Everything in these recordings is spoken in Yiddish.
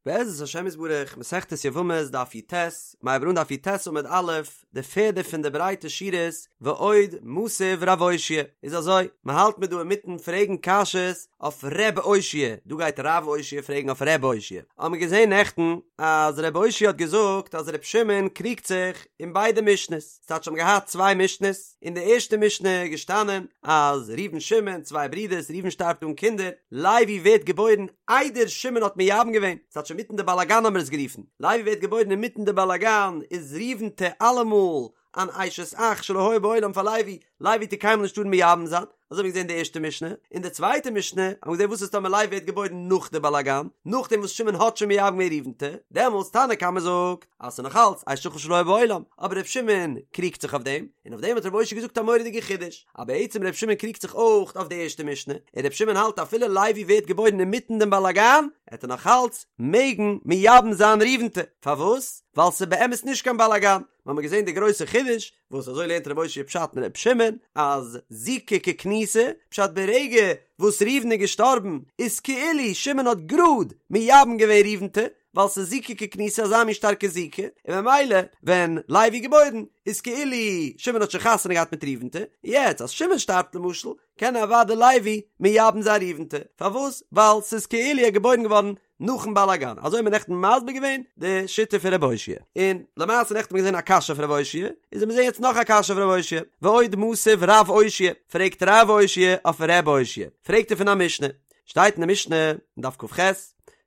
בעזרת השם יתברך, מסכת יבמות דף י"ט, מ'הייבט אן דף י"ט עמוד א', די פערדע פון די ברייטע שורות, ועוד מתיב רב אושעיא, איז אזוי, מ'האלט מיר דא אינמיטן פרעגן קשיות אויף ר' אושעיא, דא גייט רב אושעיא פרעגן אויף ר' אושעיא, האבן מיר געזען נעכטן אז ר' אושעיא האט געזאגט אז ר' שמעון קריגט זיך אין ביידע משנה'ס, ס'טייטש האבן געהאט צוויי משנה'ס, אין די ערשטע משנה איז געשטאנען אז ראובן שמעון צוויי ברידערס ראובן שטארבט אן קינדער, לוי ווערט געבוירן איידער שמעון האט מייבם געווען, ס'טייטש אינמיטן די באלאגאן האבן מיר עס גערופן, לוי ווערט געבוירן אינמיטן די באלאגאן איז ראובנ'טע אלעמאל אן אשת אח שלא היה בעולם פאר לוי, לוי וועט איר קיינמאל נישט טארן מייבם זיין, אזוי האבן מיר געזען די ערשטע משנה, אין די צווייטע משנה האבן מיר געזען וואס איז טאמער לוי ווערט געבוירן נאך די באלאגאן, נאכדעם וואס שמעון האט שוין מייבם געווען ראובנ'טע, דעמאלטס תנא קמא זאגט אז ס'איז נאך אלץ אשת אחיו שלא היה בעולם, אבער ר' שמעון קריגט זיך אויף דעם, און אויף דעם האט ר' אושעיא געזאגט א מורא'דיגע חידוש, אז בעצם ר' שמעון קריגט זיך אויך אויף די ערשטע משנה, און ר' שמעון האלט אפילו לוי ווערט געבוירן אינמיטן דעם באלאגאן, עט ער נאך אלץ מעגן מייבם זיין ראובנ'טע, פארוואס? ווייל ס'איז באמת נישט קיין באלאגאן, מ'האמיר געזען די גרויסע חידוש, וואס אזוי לערנט ר' אושעיא פשט אין ר' שמעון אז זיקה ככנוסה, פשט ברגע וואס ראובן איז געשטארבן איז כאילו שמעון האט גראד מייבם געווען ראובנ'טע, ווייל ס'איז זיקה ככנוסה אזא מין שטארקע זיקה, און ממילא ווען לוי איז געבוירן איז כאילו שמעון האט שוין חתונה געהאט מיט ראובנ'טע, יעצט אז שמעון שטארבט למשל קען אוודאי לוי מייבם זיין ראובנ'טע, פארוואס? ווייל ס'איז כאילו ער איז געבוירן געווארן נאכן באלאגאן, אזוי האט מען נעכטן מסביר געווען די שיטה פון ר' אושעיא, און למעשה נעכטן האט מען געזען א קשיא אויף ר' אושעיא, איז מיר זעהן יעצט נאך א קשיא אויף ר' אושעיא, ועוד מתיב רב אושעיא, פרעגט רב אושעיא אויף ר' אושעיא, פרעגט ער פון א משנה, שטייט אין די משנה, אין דף כ"ח,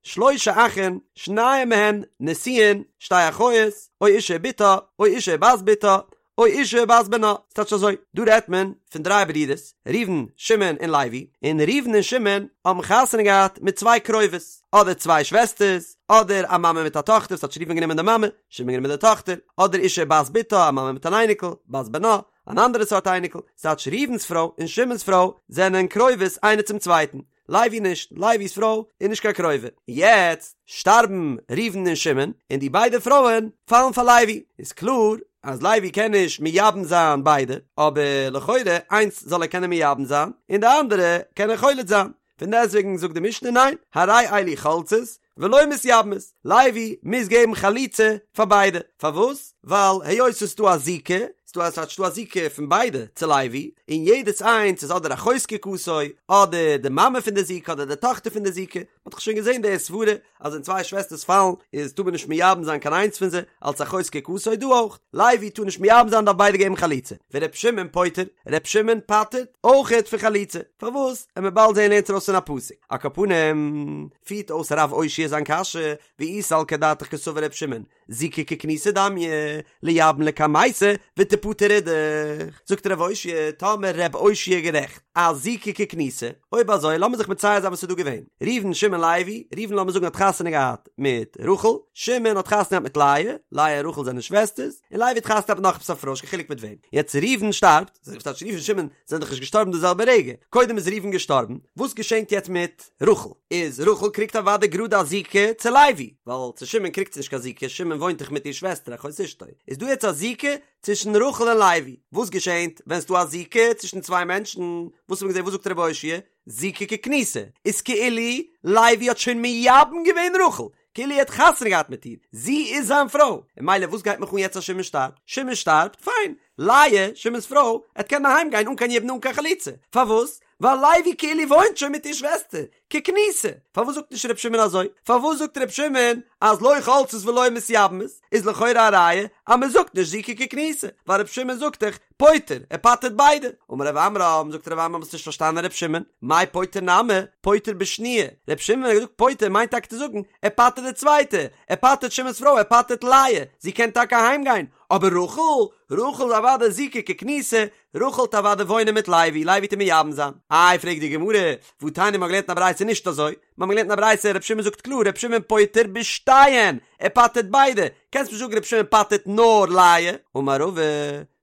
שלשה אחין, שניים מהן נשואין, שתי אחיות, או אישה ובתה, או אישה ובת בתה, או אישה ובת בנה, ס'טייטש אזוי, דא רעדט מען פון דריי ברידערס, ראובן, שמעון און לוי, און ראובן און שמעון האבן חתונה געהאט מיט צוויי קרובות, אדער צוויי שוועסטערס, אדער א מאמע מיט א טאכטער, ס'טייטש ראובן גענומען די מאמע, שמעון גענומען די טאכטער, אדער אישה ובת בתה, א מאמע מיט אן אייניקל, בת בנה, אן אנדערע סארט אייניקל, ס'טייטש ראובן'ס פרוי און שמעון'ס פרוי זענען קרובות איינער צום צווייטן, לוי נישט, לוי'ס פרוי איז נישט קיין קרובה. יעצט שטארבן ראובן און שמעון, און די ביידע פרויען פאלן פאר לוי. איז קלאר אז לוי קען נישט מייבם זיין ביידע, אבער לכאורה איינס זאל ער קענען מייבם זיין, און די אנדערע קען ער חולץ זיין. פון דעסטוועגן זאגט די משנה ניין, הרי אלו חולצות ולא מתייבמות, לוי מוז געבן חליצה פאר ביידע, פארוואס? ווייל היות ס'איז דא א זיקה, ס'דא א ס'טייטש ס'דא א זיקה פון ביידע צו לוי, און יעדעס איינס איז אדער אחות זקוקתו, אדער די מאמע פון די זיקה אדער די טאכטער פון די זיקה, מ'האט דאך שוין געזען די סברה אז ווען צוויי שוועסטערס פאלן איז טאר מען נישט מייבם זיין קיין איינס פון זיי, אלס אחות זקוקתו דא אויך, לוי טאר נישט מייבם זיין דארף ביידע געבן חליצה, ור' שמעון פוטר, ר' שמעון פטר'ט אויכעט פון חליצה, פארוואס? עמיר באלד זען לערנט ער אויס פון א פסוק, על כל פנים, פירט אויס רב אושעיא זיין קשיא, ואי סלקא דעתך קסבר ר' שמעון, זיקה ככנוסה דמיא, לייבם לקמייתא ותיפטר אידך. זאגט רב אושעיא, טאמער רב אושעיא גערעכט אז זיקה ככנוסה, אויב אזוי לאמיר זיך מצייר זיין וואס איז דא געווען, ראובן שמעון לוי, ראובן לאמיר זאגן האט חתונה געהאט מיט רחל, שמעון האט חתונה געהאט מיט לאה, לאה און רחל זענען שוועסטערס, און לוי האט חתונה געהאט מיט נאך עפעס א פרוי, נישט קיין חילוק מיט וועם. יעצט ראובן שטארבט, ס'טייטש ראובן און שמעון זענען דאך נישט געשטארבן די זעלבע רגע, קודם איז ראובן געשטארבן, וואס געשענט יעצט מיט רחל? איז רחל קריגט אוודאי גראד א זיקה צו לוי, ווייל צו שמעון קריגט זי נישט קיין זיקה, שמעון וואוינט דאך מיט איר שוועסטער אחות אשתו, איז דא יעצט א זיקה צווישן רחל און לוי, וואס געשענט ווען ס'דא א זיקה צווישן צוויי מענטשן, וואס האט מען געזען וואס זאגט רב אושעיא, זיקה ככנוסה, איז כאילו לוי האט שוין מייבם געווען רחל, כאילו ער האט חתונה געהאט מיט איר, זי איז זיין פרוי, און ממילא וואס גייט מיך אן יעצט אז שמעון שטארבט? שמעון שטארבט, פיין, לאה, שמעון'ס פרוי, עט קענען אהיים גיין אן קיין יבום אן קיין חליצה, פארוואס? ווייל לוי כאילו וואוינט שוין מיט איר שוועסטער, ככנוסה, פארוואס זאגט נישט ר' שמעון אזוי? פארוואס זאגט ר' שמעון אז לא חולצות ולא מתייבמות? איז לכאורה א ראיה אז מען זאגט נישט זיקה ככנוסה, ווייל ר' שמעון זאגט דאך פוטר, ער פטר'ט ביידע. אמר רב עמרם, זאגט רב עמרם האסט נישט פארשטאנען ר' שמעון, מאי פוטר נמי, פוטר בשניה, ר' שמעון ווען ער האט געזאגט פוטר מיינט טאקע צו זאגן ער פטר'ט די צווייטע, ער פטר'ט שמעון'ס פרוי, ער פטר'ט לאה, זי קען טאקע אהיים גיין, אבער רחל, רחל איז אוודאי זיקה ככנוסה, רחל וועט אוודאי וואוינען מיט לוי, לוי וועט איר מייבם זיין. איי פרעגט די גמרא, והתניא מ'האט געלערנט אין א ברייתא נישט אזוי, מ'האט געלערנט אין א ברייתא ר' שמעון זאגט קלאר ר' שמעון פוטר בשתיהן, ער פטר'ט ביידע, קענסט נישט זאגן ר' שמעון פטר'ט נאר לאה, אמר רבא,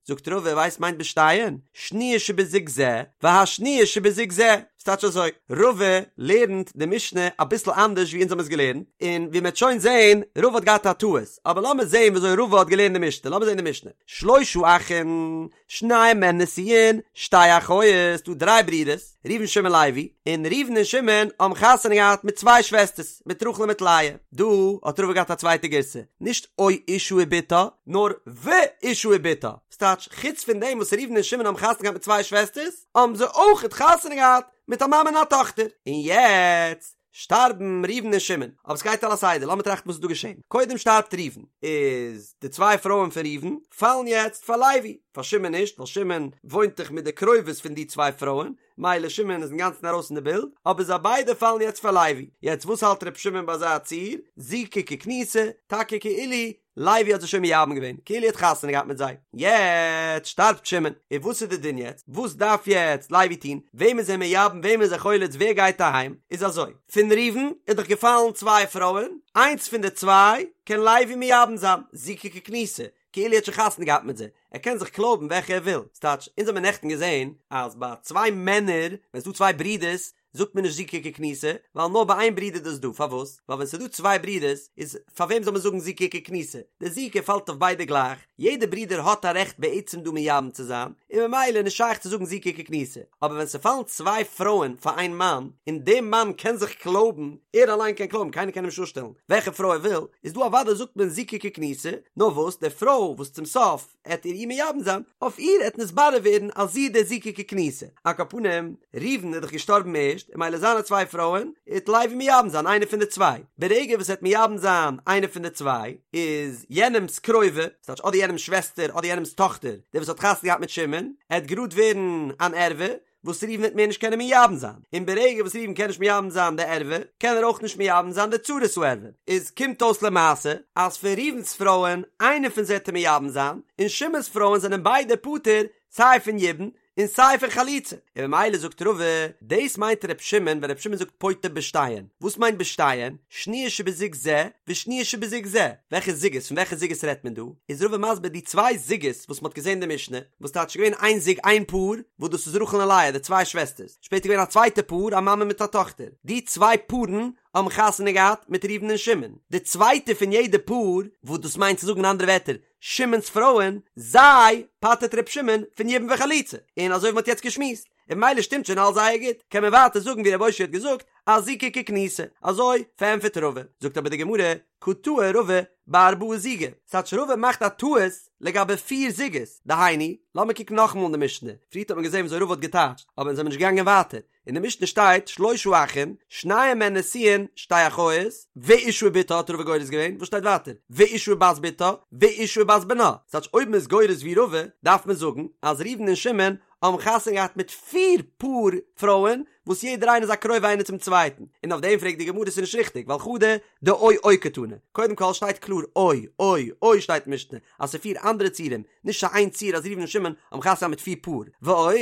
זאגט רבא ווייסט מיינט בשתיהן, שניה שבזוג זה, והשניה שבזוג זה. ס'טייטש אזוי, רבא לערנט די משנה אביסל אנדערש ווי אונז האבן עס געלערנט, און ווי מ'וועט שוין זעהן, רבא האט געהאט א טעות, אבער לאמיר זעהן וויאזוי רבא האט געלערנט די משנה, לאמיר זעהן די משנה, שלושה אחים, שניים מהן נשואין, שתי אחיות, ס'דא דריי ברידערס, ראובן שמעון לוי, און ראובן און שמעון האבן חתונה געהאט מיט צוויי שוועסטערס, מיט רחל און מיט לאה. דא האט רבא געהאט א צווייטע גירסא, נישט או אשה ובתה, נאר ואשה ובתה, ס'טייטש, חוץ פון דעם וואס ראובן און שמעון האבן חתונה געהאט מיט צוויי שוועסטערס, האבן זיי אויכעט חתונה געהאט מיט א מאמע און א טאכטער. און יעצט שטארבן ראובן און שמעון. אבער ס'גייט על הסדר, לאמיר טראכטן וואס איז דא געשען. קודם שטארבט ראובן, איז די צוויי פרויען פון ראובן פאלן יעצט פאר לוי, פאר שמעון נישט, ווייל שמעון וואוינט דאך מיט די קרובות פון די צוויי פרויען, מילא שמעון איז אינגאנצן ארויס פון די בילד, אבער זיי ביידע פאלן יעצט פאר לוי. יעצט וואס האלט ר' שמעון ביי אזא ציור? זיקה ככנוסה, טאקע כאילו לוי האט זיי שוין מייבם געווען, כאילו ער האט חתונה געהאט מיט זיי. יעצט שטארבט שמעון, און וואס איז די דין יעצט? וואס דארף יעצט לוי טון? וועם איז ער מייבם? וועם איז ער חולץ? ווער גייט אהיים? איז אזוי, פון ראובן איז דאך געפאלן צוויי פרויען, איינס פון די צוויי קען לוי מייבם זיין, זיקה ככנוסה, כאילו ער האט שוין חתונה געהאט מיט זיי, ער קען זיך קלויבן וועלכע ער וויל. ס'טייטש, אונז האבן נעכטן געזען אז ביי צוויי מענער, ווען ס'דא צוויי ברידערס, זאגט מען נישט זיקה ככנוסה, ווייל נאר ביי איין ברודער איז דאס דא, פארוואס? ווייל ווען ס'איז דא צוויי ברודערס, איז פאר וועם זאל מען זאגן זיקה ככנוסה? די זיקה פאלט אויף ביידע גלייך, יעדע ברודער האט א רעכט בעצם דא מייבם צו זיין, און ממילא איז נישט שייך צו זאגן זיקה ככנוסה. אבער ווען ס'פאלן צוויי פרויען פאר איין מאן, און דער מאן קען זיך קלויבן, ער אליין קען קלויבן, קיינער קען אים נישט אפשטעלן, וועלכע פרוי ער וויל, איז דא אוודאי זאגט מען זיקה ככנוסה, נאר וואס, די פרוי וואס צום סוף עט ער איר מייבם זיין, אויף איר עט נתברר ווערן אז זי איז די זיקה ככנוסה. על כל פנים, ראובן איז דאך געשטארבן ערשט, און מילא זיינע צוויי פרויען, עט לוי מייבם זיין איינע פון די צוויי. ברגע וואס ער עט מייבם זיין איינע פון די צוויי, איז יענעמ'ס קרובה, ס'טייטש אדער יענעמ'ס שוועסטער אדער יענעמ'ס טאכטער, די וואס האט חתונה געהאט מיט שמעון, עט גראד ווערן אן ערווה, וואס ראובן וועט מער נישט קענען מייבם זיין, און ברגע וואס ראובן קען נישט מייבם זיין די ערווה, קען ער אויך נישט מייבם זיין די צרת הערווה. איז קומט אויס למעשה, אז פון ראובן'ס פרויען, איינע פון זיי עט ער מייבם זיין, און שמעון'ס פרויען זענען ביידע פטור, סיי פון יבום, און סיי פון חליצה. און ממילא זאגט רבא, דאס מיינט ר' שמעון ווען ר' שמעון זאגט פוטר בשתיהן. וואס מיינט בשתיהן? שניה שבזוג זה, ושניה שבזוג זה. וועלכע זוגות? פון וועלכע זוגות רעדט מען דא? איז רבא מסביר די צוויי זוגות וואס מ'האט געזען אין די משנה, וואס טייטש געווען איין זוג איין פאר, וואס דאס איז רחל און לאה די צוויי שוועסטערס, שפעטער געווען א צווייטע פאר א מאמע מיט א טאכטער, די צוויי פארן האבן חתונה געהאט מיט ראובן און שמעון, די צווייטע פון יעדע פאר, וואס דאס מיינט צו זאגן אין אנדערע ווערטער, שמעון'ס פרויען, זיי פטר'ט ר' שמעון פון יבום וחליצה, און אזוי ווי מ'האט יעצט געשמועסט, און ממילא שטימט שוין אלס זייער גוט, קען מען ווייטער זאגן ווי רב אושעיא האט געזאגט אז זיקה ככנוסה, אזוי פארענטפערט רבא, זאגט אבער די גמרא, קא טעי רבא בארבעה זוגי, ס'טייטש רבא מאכט א טעות לגבי פיר זוגות, דהיינו, לאמיר קוקן נאכאמאל אין די משנה, פריערט האט מען געזען וויאזוי רבא האט געטייטשט, אבער אונז זעמיר נישט געגאנגען ווייטער, אין די משנה שטייט שלושה אחים, שניים מהן נשואין, שתי אחיות, ואשה ובתה האט רבא גורס געווען, וואס שטייט ווייטער? ואשה ובת בתה, ואשה ובת בנה, ס'טייטש אויב מ'איז גורס ווי רבא, דארף מען זאגן אז ראובן און שמעון האבן חתונה געהאט מיט פיר פאר פרויען, וואס יעדער איינער איז א קרובה איינער צום צווייטן, און אויף דעם פרעגט די גמרא ס'איז נישט ריכטיג, ווייל חדא דאו או קתני, קודם כל שטייט קלאר או, או, או שטייט אין משנה אז ס'איז פיר אנדערע ציורים, נישט ס'איז איין ציור אז ראובן און שמעון האבן חתונה געהאט מיט פיר פאר, ועוד,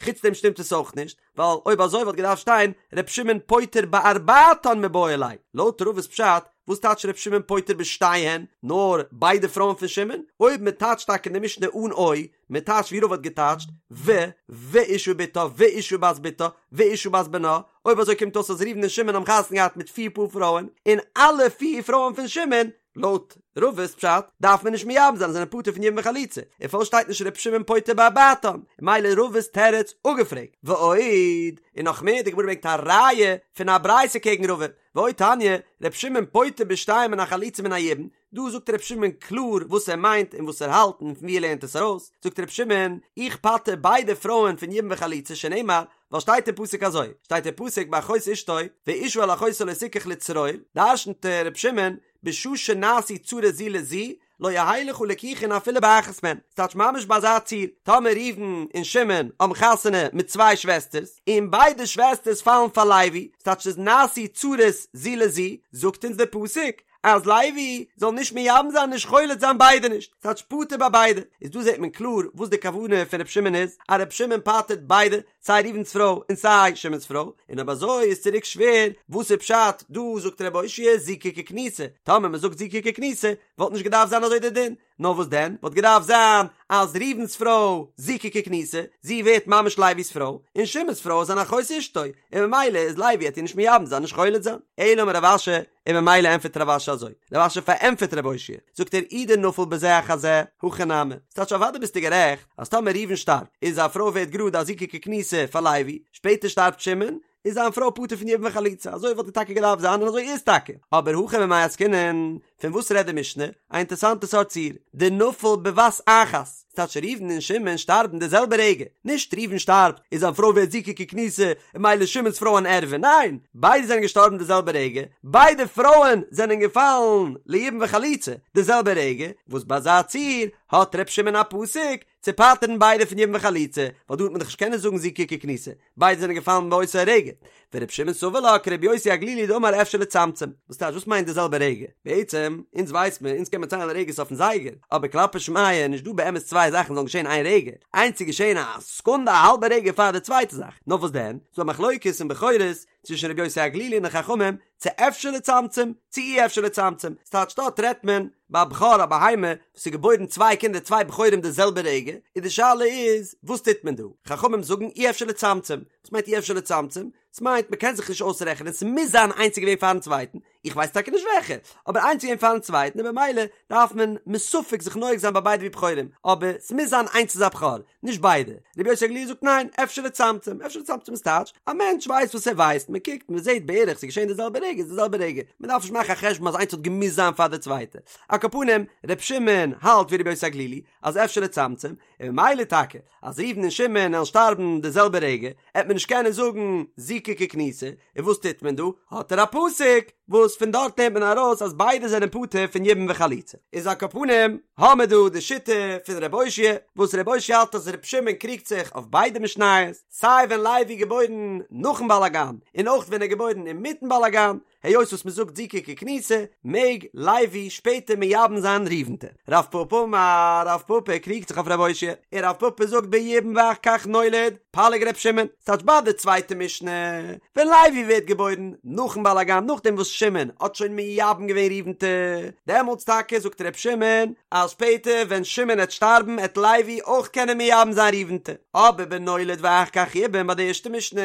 חוץ דעם שטימט עס אויך נישט, ווייל אויב אזוי וואלט געדארפט שטיין ר' שמעון פוטר בארבעתן מיבעי ליה, לויט רבא'ס פשט, וואס טייטש ר' שמעון פוטר בשתיהן, נאר ביידע פרויען פון שמעון? אויב מען טייטשט טאקע אין די משנה אן או, מען טייטשט ווי רבא האט געטייטשט, ו, ואשה ובתה, ואשה ובת בתה, ואשה ובת בנה, אויב אזוי קומט אויס אז ראובן און שמעון האבן חתונה געהאט מיט פיר פאר פרויען, און אלע פיר פרויען פון שמעון, לויט רבא'ס פשט, דארף מען נישט מייבם זיין, זיי זענען פטור פון יבום וחליצה, און פארוואס שטייט נישט ר' שמעון פוטר בארבעתן, און ממילא רבא'ס תירוץ אפגעפרעגט. ועוד, און נאך מער, די גמרא ברענגט א ראיה פון א ברייתא קעגן רבא, ועוד תניא, ר' שמעון פוטר בשתיהן מן החליצה ומן היבום, דא זאגט ר' שמעון קלאר וואס ער מיינט און וואס ער האלט און פון ווי ער לערנט עס ארויס, זאגט ר' שמעון, איך פטר ביידע פרויען פון יבום וחליצה שנאמר, ווייל שטייט אין פסוק אזוי, שטייט אין פסוק באחות אשתו, ואשה אל אחותה לא תקח לצרור, דרשנ'ט ר' שמעון, בשעה שנעשו צרות זו לזו, לא יהא לך ליקוחין אפילו באחת מהן, ס'טייטש ממש ביי אזא ציור, טאמער ראובן און שמעון האבן חתונה מיט צוויי שוועסטערס, און ביידע שוועסטערס פאלן פאר לוי, ס'טייטש ס'איז נעשו צרות זו לזו, זאגט אונז דער פסוק, אז לוי זאל נישט מייבם זיין נישט חולץ זיין ביידע נישט, ס'טייטש פטור ביי ביידע, איז דא זעט מען קלאר וואס די כוונה פון ר' שמעון איז, אז ר' שמעון פטר'ט ביידע, סיי ראובן'ס פרוי און סיי שמעון'ס פרוי, און אויב אזוי איז צוריק שווער, וואס איז פשט דא זאגט רב אושעיא זיקה ככנוסה, טאמער מ'זאגט זיקה ככנוסה וואלט נישט געדארפט זיין אזוי די דין. נאר וואס דען, וואלט געדארפט זיין אז ראובן'ס פרוי זיקה ככנוסה, זי ווערט ממש לוי'ס פרוי, און שמעון'ס פרוי איז אן אחות אשתו, און ממילא איז לוי וועט איר נישט מייבם זיין נישט חולץ זיין. אלא אמר רב אשי, און ממילא ענטפערט רב אשי אזוי, רב אשי פארענטפערט רב אושעיא, זאגט ער אי דנפל בזה אחר זה, הכי נמי, ס'טייטש אוודאי ביסטו גערעכט אז טאמער ראובן שטארבט איז זיין פרוי ווערט גראד א זיקה ככנוסה פאר לוי, שפעטער שטארבט שמעון, איז זיין פרוי פטור פון יבום וחליצה, אזוי וואלט טאקע געדארפט זיין און אזוי איז טאקע, אבער הכא במאי עסקינן, פון וואס רעדט די משנה? א אינטערסאנטע סארט ציור, דנפל בבת אחת, ס'טייטש ראובן און שמעון שטארבן די זעלבע רגע, נישט ראובן שטארבט און זיין פרוי ווערט זיקה ככנוסה און ממילא שמעון'ס פרוי אן ערווה, ניין, ביידע זענען געשטארבן די זעלבע רגע, ביידע פרויען זענען געפאלן ליבום וחליצה די זעלבע רגע, וואס ביי אזא ציור האט ר' שמעון א פסוק צו פטר'ן ביידע פון יבום וחליצה, ווייל דא וועט מען דאך נישט קענען זאגן זיקה ככנוסה, ביידע זענען געפאלן באותו הרגע. ור' שמעון סבר לה כר' יוסי הגלילי דאמר אפשר לצמצם. וואס טייטש וואס מיינט די זעלבע רגע? בעצם, אונז ווייס מען, אונז קען מען ציילן רגעס אויפן זייגער, אבער כלפי שמיא איז נישט דא באמת צוויי זאכן זאלן געשען איין רגע, איינס איז געשען א סעקונדע א האלבע רגע פאר די צווייטע זאך, נאר וואס דען, ס'דא א מחלוקת אין בכורות צווישן ר' יוסי הגלילי און די חכמים, צו אפשר לצמצם, צו אי אפשר לצמצם, ס'טייטש דארט רעדט מען ביי א בכור א בהמה וואס איז געבוירן צוויי קינדער צוויי בכורים די זעלבע רגע, און די שאלה איז וואס טוט מען דא? חכמים זאגן אי אפשר לצמצם, וואס מיינט אי אפשר לצמצם? ס'מיינט מ'קען זיך נישט אויסרעכענען ס'מוז זיין איינס איז געווען פארן צווייטן, איך ווייס טאקע נישט וועלכע, אבער איינס איז געווען פארן צווייטן און במילא דארף מען מספק זיך נוהג זיין ביי ביידע ווי בכורים, אבער ס'מוז זיין איינס איז א בכור, נישט ביידע. רבי יוסי הגלילי זאגט ניין, אפשר לצמצם, אפשר לצמצם איז טייטש, א מענטש ווייסט וואס ער ווייסט, מען קוקט, מען זעט בערך, ס'איז געשען די זעלבע רגע, איז די זעלבע רגע, מען דארף נישט מאכן א חשבון אז איינס האט געמוזט זיין פאר די צווייטע. על כל פנים, ר' שמעון האלט ווי רבי יוסי הגלילי, אז אפשר לצמצם, און ממילא טאקע, אז ראובן און שמעון עלן שטארבן די זעלבע רגע, עט מען נישט קענען זאגן זיקה ככנוסה, און וואס טוט מען דא? האט ער א פסוק וואס פון דארט נעמט מען ארויס אז ביידע זענען פטור פון יבום וחליצה. איז על כל פנים האמער דא די שיטה פון ר' אושעיא, וואס ר' אושעיא האלט אז ר' שמעון קריגט זיך אויף ביידע משניות, סיי ווען לוי איז געבוירן נאכן באלאגאן, און אויך ווען ער איז געבוירן אינמיטן באלאגאן, היות וואס מ'זאגט זיקה ככנוסה, מעג לוי שפעטער מייבם זיין ראובנ'טע. רב פפא אמר, רב פפא קריגט זיך אויף רב אושעיא, און רב פפא זאגט בייבם ואחר כך נולד, פליג ר' שמעון, ס'טייטש ביי די צווייטע משנה, ווען לוי ווערט געבוירן נאכן באלאגאן נאכדעם וואס שמעון האט שוין מייבם געווען ראובנ'טע, דעמאלטס טאקע זאגט ר' שמעון אז שפעטער ווען שמעון עט שטארבן עט לוי אויך קענען מייבם זיין ראובנ'טע, אבער בנולד ואחר כך ייבם ביי די ערשטע משנה,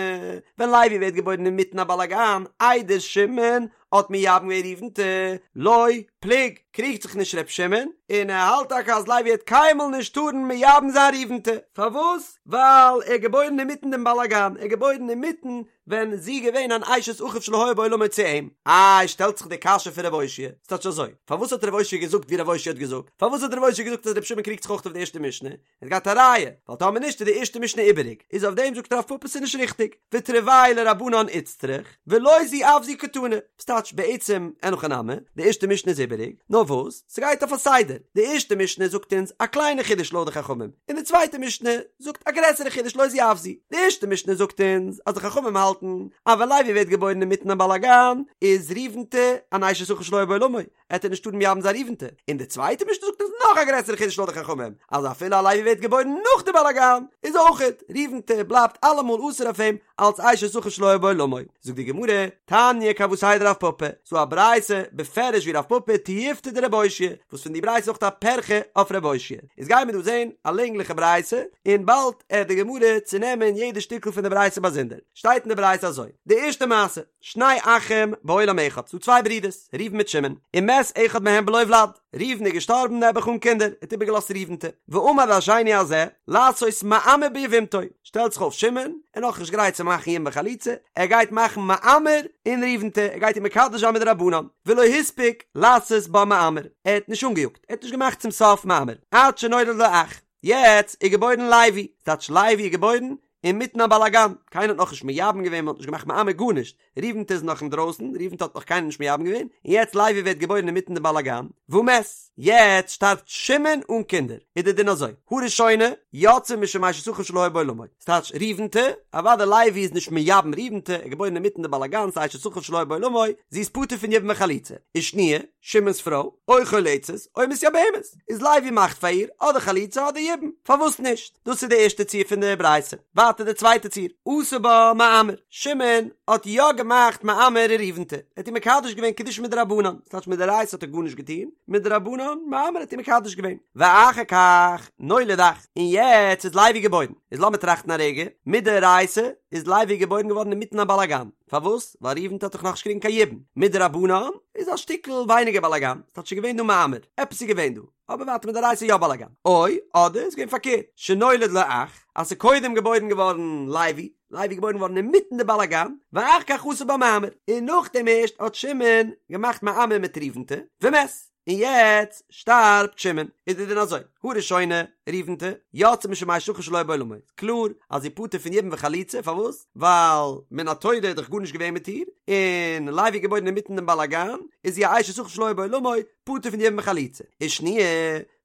ווען לוי ווערט געבוירן אינמיטן א באלאגאן איידער שמעון האט מייבם געווען ראובנ'טע, לא פליג, קריגט זיך נישט ר' שמעון, און ער האלט טאקע אז לוי העט קיינמאל נישט טארן מייבם זיין ראובנ'טע, פארוואס? ווייל ער איז געבוירן אינמיטן דעם באלאגאן, ער איז געבוירן אינמיטן ווען זי איז געווען אן אשת אחיו שלא היה בעולמו צו אים. איי שטעלט זיך די קשיא פון ר' אושעיא, ס'טייטש אזוי, פארוואס האט ר' אושעיא געזאגט ווי ר' אושעיא האט געזאגט? פארוואס האט ר' אושעיא געזאגט אז ר' שמעון קריגט זיך אויך אויף די ערשטע משנה? ער האט געהאט א ראיה, ווייל טאמער נישט איז די ערשטע משנה איבעריג, איז אויף דעם זאגט רב פפא ס'איז נישט ריכטיג, ותרוייהו לרבנן איצטריך, ולא זו אף זו קתני, ס'טייטש בעצם אין הכי נמי, די ערשטע משנה איז איבעריג, נאר וואס, ס'גייט אויף א סדר, די ערשטע משנה זאגט אונז א קליינע חידוש לויט די חכמים, און די צווייטע משנה זאגט א גרעסערע חידוש לא זו אף זו, די ערשטע משנה זאגט אונז אז די חכמים האלטן אז ווען לוי ווערט געבוירן אינמיטן א באלאגאן איז ראובנ'טע אן אשת אחיו שלא היה בעולמו, עט ער נישט טארן מייבם זיין ראובנ'טע, און די צווייטע משנה זאגט אונז נאך א גרעסערע חידוש לויט די חכמים, אז אפילו א לוי ווערט געבוירן נאך די באלאגאן, איז אויכעט ראובנ'טע בלייבט אלעמאל אסור אויף אים אלץ אשת אחיו שלא היה בעולמו. זאגט די גמרא, תניא כוותיה דרב פפא, ס'דא א ברייתא בפירוש ווי רב פפא תיובתא דרב אושעיא, וואס פון די ברייתא איז אויך א פירכא אויף רב אושעיא. איז גייען מיר דא זען א לענגליכע ברייתא, און באלד עט די גמרא צונעמען יעדע שטיקל פון די ברייתא באזונדער. שטייט אין די ברייתא אזוי, די ערשטע מעשה, שני אחים בעולם אחד, ס'דא צוויי ברידערס, ראובן מיט שמעון, ומת אחד מהם בלא ולד, ראובן איז געשטארבן נעבעך אן קינדער, ער האט איבערגעלאזט ראובנ'טע, ועמד השני הזה, לעשות מאמר ביבמתו, שטעלט זיך אויף שמעון, ער איז נאכנישט גרייט צו מאכן יבום וחליצה, ער גייט מאכן מאמר אין ראובנ'טע, ער גייט איר מקדש זיין מדרבנן, ולא הספיק לעשות בה מאמר, ער האט נישט אנגעיאגט, ער האט נישט געמאכט צום סוף מאמר, עד שנולד לו אח, יעצט איז געבוירן לוי, ס'טייטש לוי איז געבוירן אינמיטן א באלאגאן, קיינער האט נאכנישט מייבם געווען, מען האט נישט געמאכט מאמר גארנישט, ראובנ'טע איז נאך אינדרויסן, ראובנ'טע האט נאך קיינער נישט מייבם געווען, און יעצט לוי ווערט געבוירן אינמיטן די באלאגאן, ומת, יעצט שטארבט שמעון אן קינדער, איז די דין אזוי, הראשונה, יוצאה משום אשת אחיו שלא היה בעולמו, ס'טייטש ראובנ'טע, אוודאי לוי איז נישט מייבם ראובנ'טע, ער איז געבוירן אינמיטן די באלאגאן, ס'איז אשת אחיו שלא היה בעולמו, זי איז פטור פון יבום וחליצה, ושניה, שמעון'ס פרוי, או חולצת, או מתייבמת. איז לוי מאכט פאר איר אדער חליצה אדער יבום, פארוואס נישט? דאס איז די ערשטע ציור פון די ברייתא. ווייטער די צווייטע ציור, עשה בה מאמר, שמעון האט יא געמאכט מאמר אין ראובנ'טע, ער האט איר מקדש געווען קידושין מדרבנן, ס'טייטש מדאורייתא האט ער גארנישט געטון, מדרבנן מאמר האט איר מקדש געווען, ואחר כך נולד אח, און יעצט איז לוי געבוירן, איז לאמיר טראכטן א רגע, מדאורייתא איז לוי געבוירן געווארן אינמיטן א באלאגאן, פארוואס? ווייל ראובנ'טע האט דאך נאכנישט געקריגן קיין יבום, מדרבנן איז א שטיקל ווייניגער באלאגאן, ס'האט שוין געווען דא מאמר, עפעס איז געווען דא, אבער ווייטער מדאורייתא יא באלאגאן, או אדער איז געווען פארקערט, שנולד לו אח, אז ס'איז קודם געבוירן געווארן לוי, לוי איז געבוירן געווארן אינמיטן די באלאגאן, ואחר כך עשה בה מאמר, און נאכדעם ערשט האט שמעון געמאכט מאמר מיט ראובנ'טע, ומת, און יעצט שטארבט שמעון, איז די דין אזוי, הראשונה, ראובנ'טע, יוצאה משום אשת אחיו שלא היה בעולמו, איז קלאר אז זי פטור פון יבום וחליצה, פארוואס? ווייל מן התורה איז דאך גארנישט געווען מיט איר, און לוי איז געבוירן אינמיטן דעם באלאגאן, איז זי א אשת אחיו שלא היה בעולמו, פטור פון יבום וחליצה. ושניה,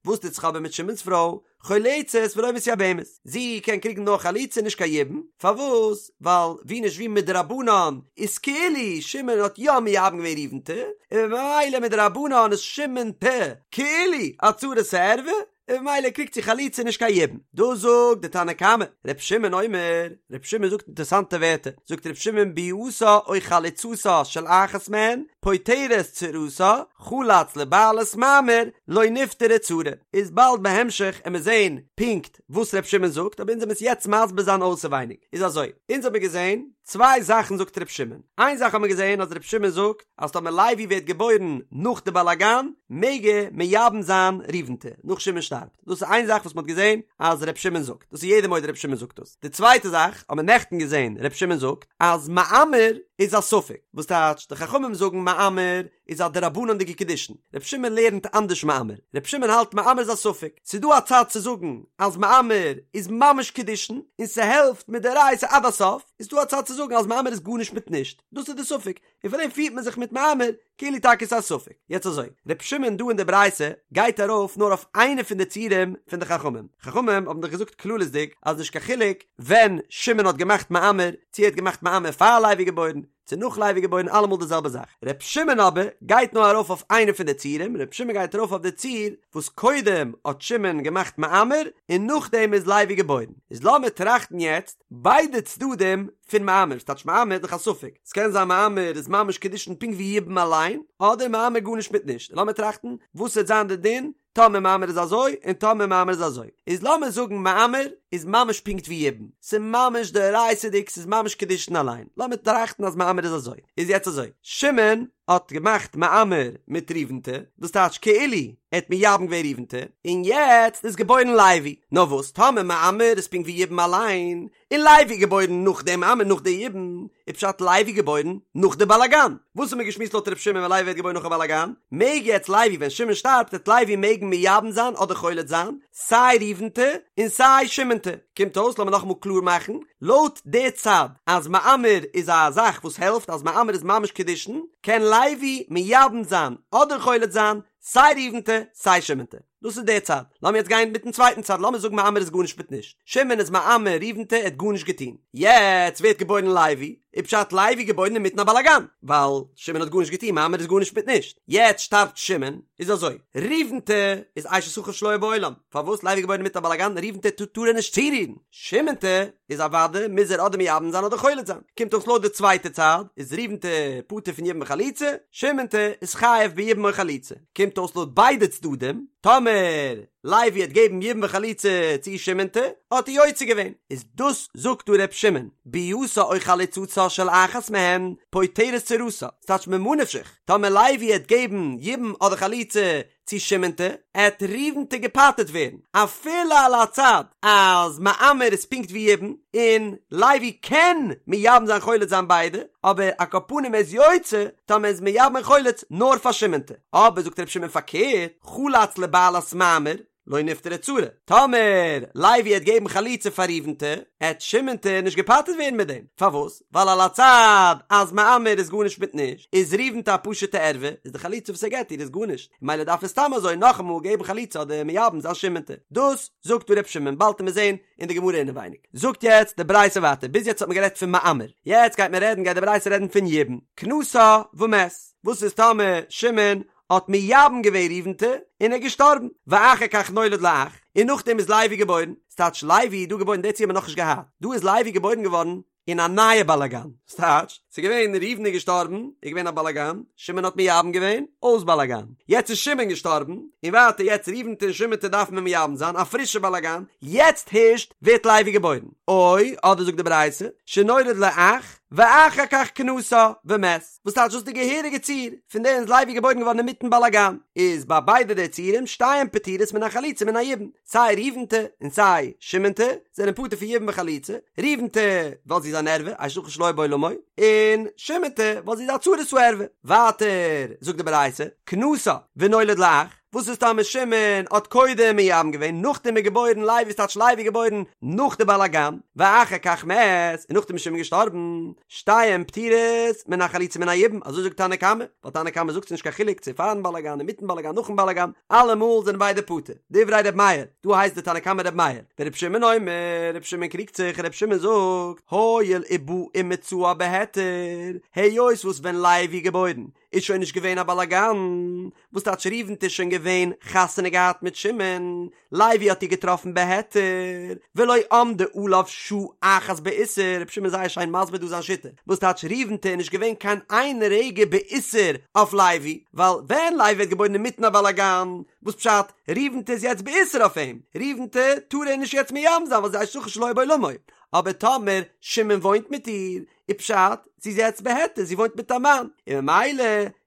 וואס טוט זיך אבער מיט שמעון'ס פרוי? חולצת ולא מתייבמת, זי קען קריגן נאר חליצה נישט קיין יבום, פארוואס? ווייל ווי נישט ווי מדרבנן איז כאילו שמעון האט יא מייבם געווען ראובנ'טע, און ממילא מדרבנן איז שמעונ'טע כאילו א צרת הערווה, און ממילא קריגט זי חליצה נישט קיין יבום. דאס זאגט די תנא קמא, ר' שמעון אומר, ר' שמעון זאגט אינטערעסאנטע ווערטער, זאגט ר' שמעון ביאתה או חליצתה של אחת מהן פוטרת צרתה, חלץ לבעלת מאמר לא נפטרה צרה, איז באלד בהמשך עמיר זעהן פונקט וואס ר' שמעון זאגט אבער אונז עמיר עס יעצט מסביר זיין אויסעווייניג, איז אזוי, אונז האמיר געזעהן צוויי זאכן זאגט ר' שמעון, איין זאך האמיר געזעהן אז ר' שמעון זאגט אז טאמער לוי ווערט געבוירן נאך די באלאגאן מעג ער מייבם זיין ראובנ'טע נאך שמעון שטארבט, דאס איז איין זאך וואס מ'האט געזעהן אז ר' שמעון זאגט, דאס איז יעדער מודה ר' שמעון זאגט דאס, די צווייטע זאך האמיר נעכטן געזעהן ר' שמעון זאגט אז מאמר איז א ספק, וואס טייטש די חכמים זאגן מאמר איז א דרבנן'דיגע קידושין, ר' שמעון לערנט אנדערש מאמר, ר' שמעון האלט מאמר איז א ספק, ס'איז דא א צד צו זאגן אז מאמר איז ממש קידושין און ס'העלפט מדאורייתא עד הסוף, איז דא א צד צו זאגן אז מאמר איז גארנישט מיט נישט, דאס איז די ספק, און פאר דעם פירט מען זיך מיט מאמר כאילו טאקע ס'איז א ספק. יעצט אזוי, ר' שמעון דא אין די ברייתא גייט ארויף נאר אויף איינע פון די ציורים פון די חכמים, חכמים האבן דאך געזאגט כללית'דיג אז נישט קיין חילוק ווען שמעון האט געמאכט מאמר, צו ער האט געמאכט מאמר פאר לוי געבוירן, צו נאך לוי געבוירן אלעמאל די זעלבע זאך. ר' שמעון אבער גייט נאר ארויף אויף איינע פון די ציורים, ר' שמעון גייט ארויף אויף די ציור וואס קודם האט שמעון געמאכט מאמר און נאכדעם איז לוי געבוירן. איז לאמיר טראכטן יעצט ביידע צדדים פון מאמר, ס'טייטש מאמר איז דאך א ספק, ס'קען זיין מאמר איז ממש קידושין פונקט ווי יבום אליין, אדער מאמר גארנישט מיט נישט, לאמיר טראכטן וואס וועט זיין די דין טאמער מאמר איז אזוי און טאמער מאמר איז אזוי, איז לאמיר זאגן מאמר איז ממש פונקט ווי יבום, ס'איז ממש דאורייתא'דיג ס'איז ממש קידושין אליין, לאמיר טראכטן אז מאמר איז אזוי, איז יעצט אזוי, שמעון האט געמאכט מאמר מיט ראובנ'טע, דאס טייטש כאילו ער האט מייבם געווען ראובנ'טע, און יעצט איז געבוירן לוי, נאר וואס טאמער מאמר איז פונקט ווי יבום אליין, און לוי געבוירן נאך דעם מאמר נאך די יבום, איז פשט לוי געבוירן נאך די באלאגאן. וואס האט מען געשמועסט לויט ר' שמעון ווען לוי ווערט געבוירן נאך א באלאגאן, מעג יעצט לוי ווען שמעון שטארבט וועט לוי מעגן מייבם זיין אדער חולץ זיין סיי ראובנ'טע און סיי שמעונ'טע. קומט אויס לאמיר נאכאמאל קלאר מאכן, לויט די צד אז מאמר איז א זאך וואס העלפט אז מאמר איז ממש קידושין, קען לוי מייבם זיין אדער חולץ זיין סיי ראובנ'טע סיי שמעונ'טע. דאס איז דער צד. לאמיר יעצט גיין מיטן צווייטן צד, לאמיר זאגן מאמר איז גארנישט מיט נישט. שמעון איז מאמר ראובנ'טע, ער האט גארנישט געטון. יעצט ווערט געבוירן לוי, איז פשט לוי געבוירן אינמיטן א באלאגאן, ווייל שמעון האט גארנישט געטון, מאמר איז גארנישט מיט נישט. יעצט שטארבט שמעון, איז אזוי, ראובנ'טע איז אשת אחיו שלא היה בעולם, פארוואס לוי געבוירן אינמיטן א באלאגאן, ראובנ'טע טאר ער נישט צורירן. שמעונ'טע איז אוודאי מוז ער אדער מייבם זיין אדער חולץ זיין. קומט אויס לויט די צווייטע צד איז ראובנ'טע פטור פון יבום וחליצה, שמעונ'טע איז חייב ביבום או חליצה. קומט אויס לויט ביידע צדדים, טאמער לוי האט געבן יבום וחליצה צו שמעונ'טע, האט ער יוצא געווען. איז דאס זאגט דא ר' שמעון, ביאתה או חליצתה של אחת מהן פוטרת צרתה, ס'טייטש ממה נפשך, טאמער לוי האט געבן יבום אדער חליצה צו שמעונ'טע, עט ראובנ'טע געפטר'ט ווערן, אפילו על הצד אז מאמר איז פונקט ווי יבום, און לוי קען מייבם זיין חולץ זיין ביידע, אבער על כל פנים ער איז יוצא טאמער ער איז מייבם און חולץ נאר פאר שמעונ'טע, אבער זאגט ר' שמעון פארקערט, חלץ לבעלת מאמר, לא נפטרה צרה, טאמער לוי העט געבן חליצה פאר ראובנ'טע, עט שמעונ'טע נישט געפטר'ט ווערן מיט דעם, פארוואס? ווייל על הצד אז מאמר איז גארנישט מיט נישט, איז ראובנ'טע א פשוט'ע ערווה, איז די חליצה וואס ער געט איר איז גארנישט, ממילא דארף ער סתם אזוי נאכאמאל געבן חליצה אדער מייבם זיין שמעונ'טע. דאס זאגט דא ר' שמעון, באלד עמיר זעהן אין די גמרא אינעווייניג. זאגט יעצט די ברייתא ווייטער, ביז יעצט האט מען גערעדט פון מאמר, יעצט גייט מען רעדן גייט די ברייתא רעדן פון יבום, כנסה ומת, וואס איז טאמער שמעון האט מייבם געווען ראובנ'טע און ער איז געשטארבן, ואחר כך נולד לו אח, און נאכדעם איז לוי געבוירן, ס'טייטש לוי איז דא געבוירן די ציור האט מען נאכנישט געהאט, דא איז לוי געבוירן געווארן אין א נייע באלאגאן, ס'טייטש, ס'איז געווען ראובן איז געשטארבן, איז געווען א באלאגאן, שמעון האט מייבם געווען, אויס באלאגאן. יעצט איז שמעון געשטארבן, און ווייטער יעצט ראובנ'טע און שמעונ'טע דארף מען מייבם זיין, א פרישע באלאגאן, יעצט הערשט ווערט לוי געבוירן. או, אדער זאגט די ברייתא, שנולד לו אח, ואחר כך כנסה, ומת. וואס טייטש דאס איז די געהעריגע ציור, פון דעם איז לוי געבוירן געווארן אינמיטן באלאגאן, איז ביי ביידע די ציורים שתיהן פטורות מן החליצה ומן היבום, סיי ראובנ'טע און סיי שמעונ'טע זענען פטור פון יבום וחליצה, ראובנ'טע ווייל זי איז אן ערווה, אשת אחיו שלא היה בעולמו, און שמעונ'טע ווייל זי איז א צרת הערווה. ווייטער זאגט די ברייתא, כנסה ונולד לו אח, וואס איז טאמער שמעון האט קודם מייבם געווען נאכדעם איז געבוירן לוי ס'טייטש לוי געבוירן נאך די באלאגאן, ואחר כך מת, און נאכדעם איז שמעון געשטארבן, שתיהן פטורות מן החליצה ומן היבום, אזוי זאגט תנא קמא, ווייל תנא קמא זאגט ס'נישט קיין חילוק צו פארן באלאגאן אינמיטן באלאגאן נאכן באלאגאן, אלעמאל זענען ביידע פטור, דברי ר' מאיר, דא הייסט די תנא קמא ר' מאיר, ור' שמעון אומר, ר' שמעון קריגט זיך, ר' שמעון זאגט, הואיל ובא ומצאה בהיתר, היות וואס ווען לוי געבוירן איז שוין נישט געווען א באלאגאן, וואס טייטש ראובנ'טע איז שוין געווען חתונה געהאט מיט שמעון, לוי האט איר געטראפן בהיתר, ולא עמדה עליו שעה אחת באיסור, רבי שמעון איז זייער שיין מסביר דא זיין שיטה, וואס טייטש ראובנ'טע איז נישט געווען קיין איין רגע באיסור אויף לוי, ווייל ווען לוי ווערט געבוירן אינמיטן א באלאגאן, וואס פשט ראובנ'טע איז יעצט באיסור אויף אים, ראובנ'טע טאר ער נישט יעצט מייבם זיין ווייל זי איז אשת אחיו שלא היה בעולמו, אבער טאמער שמעון וואוינט מיט איר, איז פשט, זי איז יעצט בהיתר, זי וואוינט מיט א מאן, און ממילא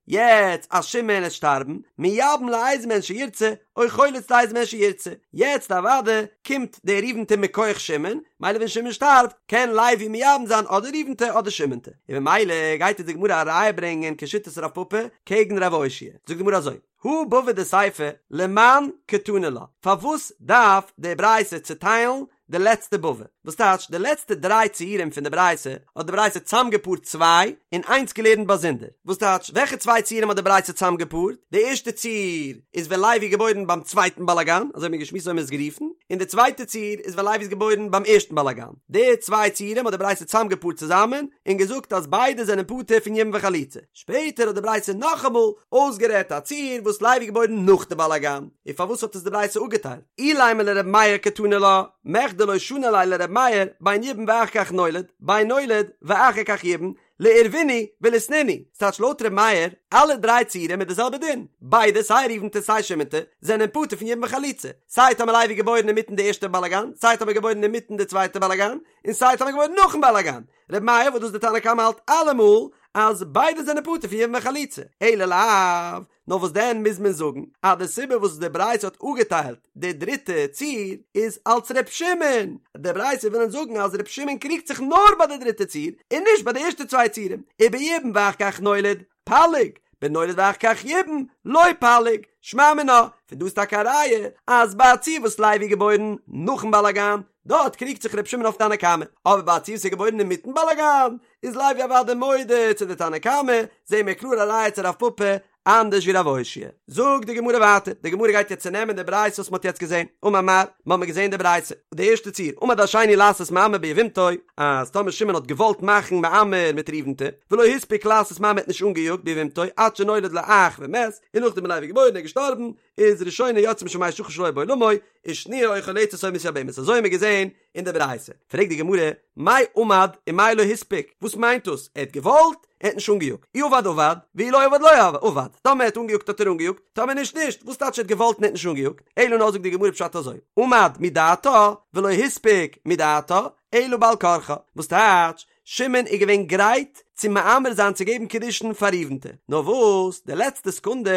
יעצט אז שמעון עט שטארבן, מייבם לאיזה מהן שירצה, או חולץ לאיזה מהן שירצה, יעצט אוודאי קומט די ראובנ'טע מכח שמעון, מילא ווען שמעון שטארבט, קען לוי מייבם זיין אדער ראובנ'טע אדער שמעונ'טע, און ממילא גייט אונז די גמרא א ראיה ברענגען כשיטת רב פפא קעגן רב אושעיא, זאגט די גמרא אזוי, הא בבא דסיפא למאן קתני לה, פארוואס דארף די ברייתא צוטיילן די לעצטע בבא, וואס טייטש די לעצטע דריי ציורים פון די ברייתא האט די ברייתא צאמגעפארט צוויי און איינס געלערנט באזונדער, וואס טייטש וועלכע צוויי ציורים האט די ברייתא צאמגעפארט, די ערשטע ציור איז ווען לוי איז געבוירן ביים צווייטן באלאגאן, אזוי האט מען געשמועסט אזוי האט מען עס גערופן, און די צווייטע ציור איז ווען לוי איז געבוירן ביים ערשטן באלאגאן, די צוויי ציורים האט די ברייתא צאמגעפארט צוזאמען און געזאגט אז ביידע זענען פטור פון יבום וחליצה. שפעטער האט די ברייתא נאכאמאל אויסגערעדט א ציור וואס לוי איז געבוירן נאך די באלאגאן, און פארוואס האט עס די ברייתא אפגעטיילט? אילימא לר' מאיר קתני לה, מכדי לא שני ליה לר' מאיר, בין יבם ואחר כך נולד, בין נולד ואחר כך יבם, לעירבינהו וליתנינהו, ס'טייטש לויט ר' מאיר, אלע דריי ציורים איז די זעלבע דין, ביידע סיי ראובנ'טע סיי שמעונ'טע זענען פטור פון יבום וחליצה, סיי טאמער לוי איז געבוירן אינמיטן די ערשטע באלאגאן, סיי טאמער געבוירן אינמיטן די צווייטע באלאגאן, און סיי טאמער געבוירן נאכן באלאגאן. ר' מאיר וואס דאס די תנא קמא האלט אלעמאל אז ביידע זענען פטור פון יבום וחליצה, אלא לאו, נאר וואס דען מוז מען זאגן אז די סיבה וואס די ברייתא האט אפגעטיילט די דריטע ציור איז אלץ ר' שמעון, די ברייתא וויל אונז זאגן אז ר' שמעון קריגט זיך נאר ביי די דריטע ציור און נישט ביי די ערשטע צוויי ציורים, וביבם ואחר כך נולד, פליג, בנולד ואחר כך יבם, לא פליג, שמע מינה, פון דא איז טאקע א ראיה אז ביי א ציור וואס לוי איז געבוירן נאכן באלאגאן, דארט קריגט זיך ר' שמעון אויף תנא קמא, אבער ביי א ציור וואס איז געבוירן אינמיטן באלאגאן, איז לוי אוודאי מודה צו די תנא קמא, זעהן מיר קלאר א ראיה צו רב פפא, אנדערש ווי רב אושעיא. זאגט די גמרא ווייטער, די גמרא גייט יעצט צונעמען די ברייתא וואס מען האט יעצט געזעהן, אמר מר, מען האט מיר געזעהן די ברייתא, די ערשטע ציור, עמד השני לעשות מאמר ביבמתו, אז טאמער שמעון האט געוואלט מאכן מאמר מיט ראובנ'טע, ולא הספיק לעשות מאמר האט נישט אנגעיאגט ביבמתו עד שנולד לו אח ומת, און נאכדעם איז לוי געבוירן און געשטארבן, איז ראשונה יוצאה משום אשת אחיו שלא היה בעולמו, ושניה או חולצת או מתייבמת, אזוי האבן מיר געזען אין די ברייתא. פרעגט די גמרא, מאי עמד ומאי לא הספיק, וואס מיינט דאס, ער האט געוואלט, ער האט נישט אנגעיאגט, אי עבד עבד, ואי לא עבד לא עבד, טאמער ער האט אנגעיאגט האט ער אנגעיאגט, טאמער נישט נישט, וואס טייטש ער האט געוואלט און ער האט נישט אנגעיאגט, אלא נאר זאגט די גמרא פשט אזוי, עמד מדעתה ולא הספיק מדעתה, אלא בעל כרחה, וואס טייטש, שמעון איז געווען גרייט צו מאמר זיין צו געבן קידושין פאר ראובנ'טע, נאר וואס די לעצטע סעקונדע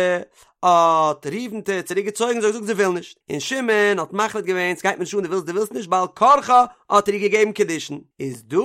האט ראובנ'טע צוריק געצויגן, זי האט געזאגט זי וויל נישט, און שמעון האט מחליט געווען ס'גייט מיר נישט אן דו ווילסט דו ווילסט נישט בעל כרחה האט ער איר געגעבן קידושין, איז דא